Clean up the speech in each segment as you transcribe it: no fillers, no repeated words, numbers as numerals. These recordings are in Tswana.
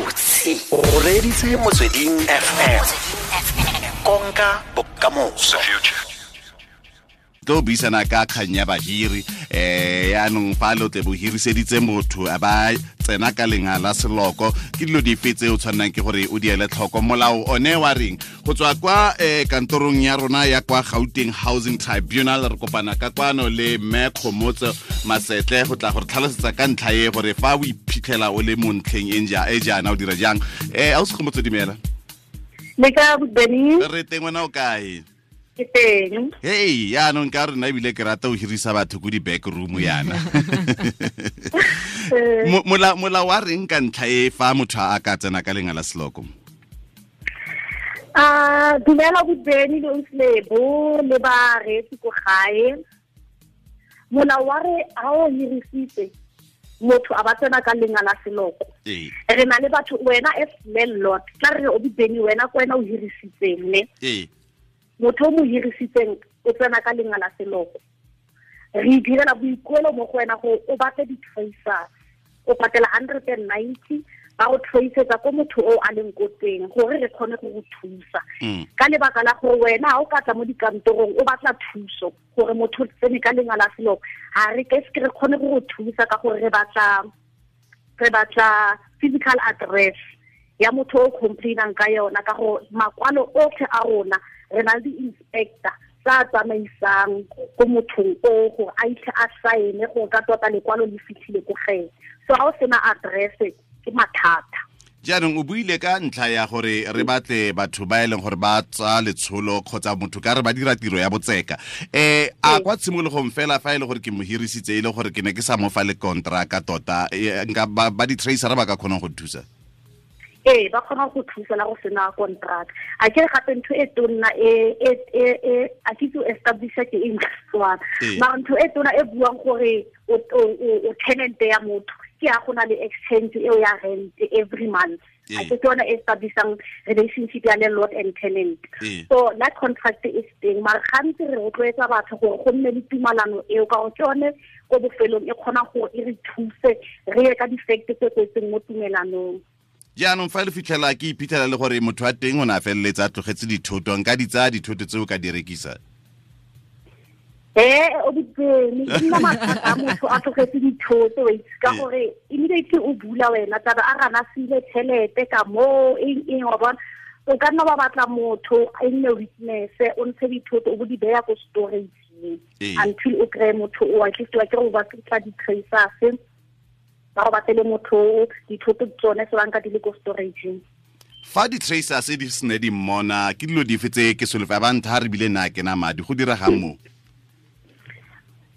Gabotse o reeditse Motsweding FM, konka bokamoso. Tlo buisana ka kgang ya bahiri, yaanong fa lo tle bo hiriseditse motho a ba tsena ka lenga la seloko, ke dilo dife tse o tshwannang ke gore o di ele tlhoko? Molao one wa reng? Go tswa kwa kantorong ya rona ya kwa Gauteng Housing Tribunal, re kopana ka kwano le mme Kgomotso Masetle go tla gore tlhalosetsa ka ntlha e gore fa o iphitlhela o le mo ntlheng e jaana o dira jang. Ausi Kgomotso, dumela. Le ka Beni? Re teng, wena o kae? Ke teng. Hei, yaanong ka rena ebile ke rata o hirisa batho ko di-back room yana. Molao wa reng ka ntlha e fa motho a ka tsena ka lenga la seloko? Dumela Beni le Ausi le bareetsi ko gae. Molao wa re ha o hirisitse motho a ba tsena ka lenga la seloko, re na le batho, wena as landlord, tla re o Beni, wena ko wena o hirisitseng ne, motho o mo hirisitseng o tsena ka lenga la seloko, re direla boikuelo mo go wena gore o batle di-tracers, o patela 190 ba go traceetsa ko motho o a leng ko teng gore re kgone go go thusa. Ka lebaka la gore wena ha o ka tla mo dikantorong o batla thuso gore motho o tsene ka lenga la seloko, ha re ke se re kgone go go thusa ka gore re batla physical address ya motho o complainang ka yona, ka gore makwalo otlhe a rona re na le di-inspector tsa tsamaisang ko mothong o gore a itlhe a saene gore ka tota lekwalo le fitlhile ko gene. So ha o sena address ke mathata. Jaanong o buile ka ntlha ya gore re batle batho ba e leng gore ba tsa letsholo kgotsa motho ka re ba dira tiro ya botseka. A kwa tshimologong fela fa e le gore ke mo hirisitse e le gore ke ne ke sa mo fa le kontraka tota, nka ba di-tracer ba ka kgonang go thusa? Ee, ba kgona go thusa la go sena contract. A ke gape ntho e tonna e a ke tso establisha ke eng Setswana, mara ntho e tona e buang gore o tenant ya motho ke ya go na le exchange eo ya rent every month. A ke yona e establishang relationship ya landlord and tenant. So that contract is teng, mara gantsi re rotloetsa batho gore go nne le tumalano eo, ka gore ke yone ko bofelong e kgona gore e re thuse re ye ka di-fact tse kwetseng mo tumelanong. Jaanong fa le fitlhela ke iphitlhela le gore motho wa teng o ne a feleletsa a tlogetse dithoto, nka di tsaya dithoto tseo ka di rekisa? O Beni, ke nna mathata a motho a tlogetse dithoto, wa itse, ka gore immediately o bula wena taba a gana sile tšhelete ka moo eng wa bona. O ka nna wa batla motho a nne witness, o ntshe dithoto o bo di beya ko storage until o kry-e motho o, at least wa kere o batla di-tracers ba go batlele motho dithoto tsone se banka di le ko storage. Fa di-tracers di sene di mmona, ke dilo dife tse ke solofa ba ntha re bile nna ke na madi go diregang mo?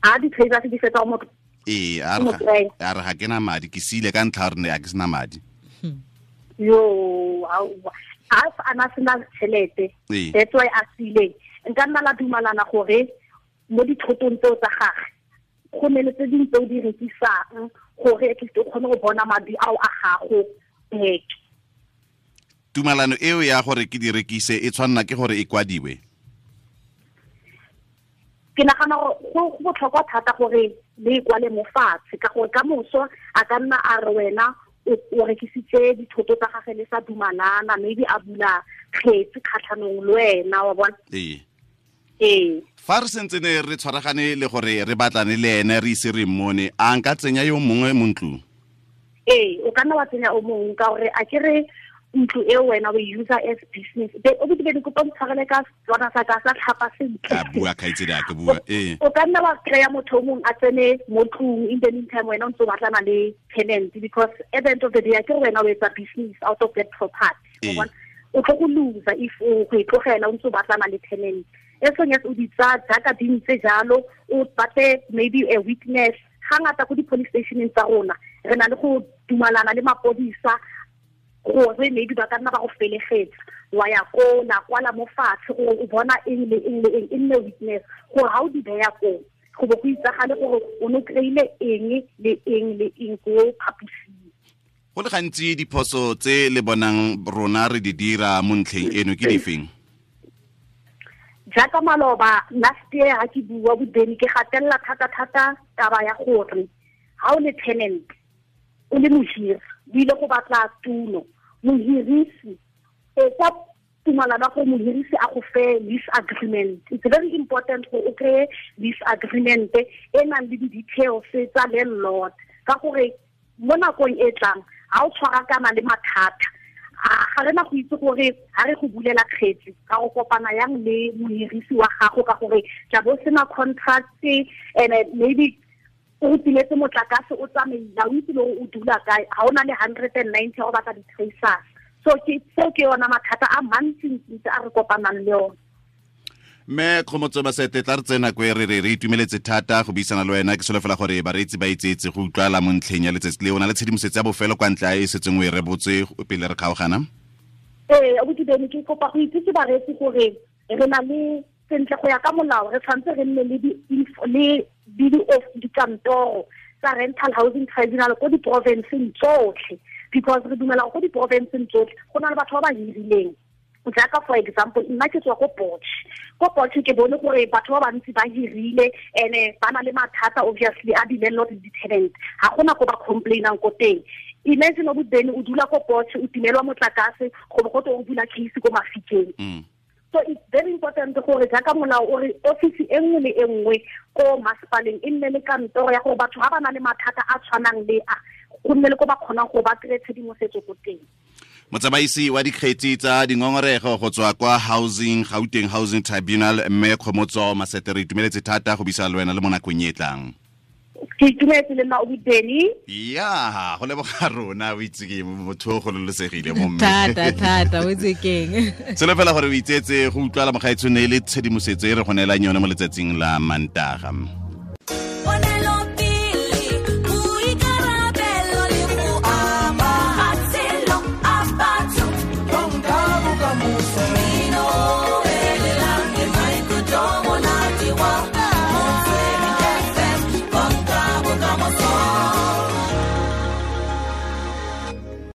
A di-tracers di fetsa motho? Ee, a re ga ke na madi, ke siile ka ntlha gore a ke sena madi. Yo, a ana sena tšhelete, that's why a siileng. Nka nna la dumalana gore mo dithotong tseo tsa gagwe go ne le tse dingwe tse o di rekisang gore at least o kgone go bona madi ao a gago back. Tumalano eo ya gore ke di rekise e tshwanna ke gore e kwadiwe? Ke nagana gore go botlhokwa thata gore le e kwale mo fatshe, ka gore ka moso a ka nna a re wena o rekisitse dithoto tsa gagwe le sa dumalana, maybe a bula kgetsi kgatlhanong le wena, wa bona. Ee. Fa re sentse ne re tshwaragane le gore re batlane le ene re ise re mmone, a nka tsenya yo mongwe mo ntlong? Ee, o ka nna wa tsenya o mongwe, ka gore a ke re ntlo eo wena o e user as business. O be di kopa ntshwarele ka Setswana sa ka sa tlhapa sentle. A bua kgaitsedi a ke bua. O ka nna wa kry-a motho o mongwe a tsene mo tlong, in the meantime wena o ntse o batlana le tenant, because at the end of the day a ke re wena o etsa business out of that property. O tlo go loser if o go e tlogela o ntse o batlana le tenant. As long as o di tsaya jaaka di ntse jalo, o batle maybe a witness. Ga ngata ko di-police stationeng tsa rona re na le go dumalana le mapodisa gore maybe ba ka nna ba go felegetsa, wa ya ko la kwala mo fatshe gore o bona eng le eng le eng, e nne witness gore ha o di beya koo go bo go itsagale gore o ne o kry-ile eng le eng le eng ko phaposing. Go le gantsi diphoso tse le bonang rona re di dira mo ntlheng eno ke difeng? Jaaka maloba last year ha ke bua Beni, ke gatelela thata-thata taba ya gore ha o le tenant o le mohiri, o ile go batla tulo mohirisi etsa tumalano go mohirisi a go fe lease agreement. It's very important go o kry lease agreement e nang le di-details tsa landlord, ka gore mo nakong e tlang ga o tshwarakana le mathata, ga re na go itse gore ga re go bulela kgetsi ka go kopana yang le mohirisi wa gago, ka gore tla bo sena contract and maybe o tiletse motlakase o tsamaila, o itse le gore o dula kae, ga o na le 190 go batla di-tracers. So ke yona mathata a mantsi-ntsi a re kopanang le ona. Mme Kgomotso Masete, tla re tsena ko re re itumeletse thata go buisana le wena. Ke solofela gore bareetsi ba itsetse go utlwala mo ntlheng ya letsatsi le o na le tshedimosetso ya bofelo kwa ntle a e setseng o e rebotse pele re kgaogana. Ee, abuti Beni, ke kopa go itsise bareetsi gore re na le sentle go ya ka molao, re tshwanetse re nne le dikantoro tsa Rental Housing Tribunal ko diporofenseng tsotlhe, because re dumela go diporofenseng tsotlhe go na le batho ba ba hirileng. Jaaka for example, nna ke tswa ko Potch. Ko Potch ke bone gore batho ba bantsi ba hirile ene ba na le mathata obviously a di-landlord le di-tenant, ga gona ko ba complainang ko teng. Imagine o bene o dula ko Potch, o timelwa motlakase, go bo go twe o bula case ko Mafikeng. So it's very important gore jaaka molao o re office e nngwe le e nngwe ko masepaleng e nne le kantoro ya gore batho ga ba na le mathata a tshwanang le a, go nne le ko ba kgonang go ba kry-e tshedimosetso ko teng. Motsamaisi wa dikgetsi tsa dingongorego go tswa kwa Housing Gauteng Housing Tribunal, mme Kgomotso Masete, re itumeletse thata go buisana le wena le mo nakong e tlang. Ke itumetse le nna o Beni. Ya, go leboga rona, o itse ke motho o gololosegile mo mme. Thata thata, o itse keng. Selo fela gore o itsetse go utlwala mogaetsho ne le tshedimosetso e re go neelang yone mo letsatsing la Mantaga.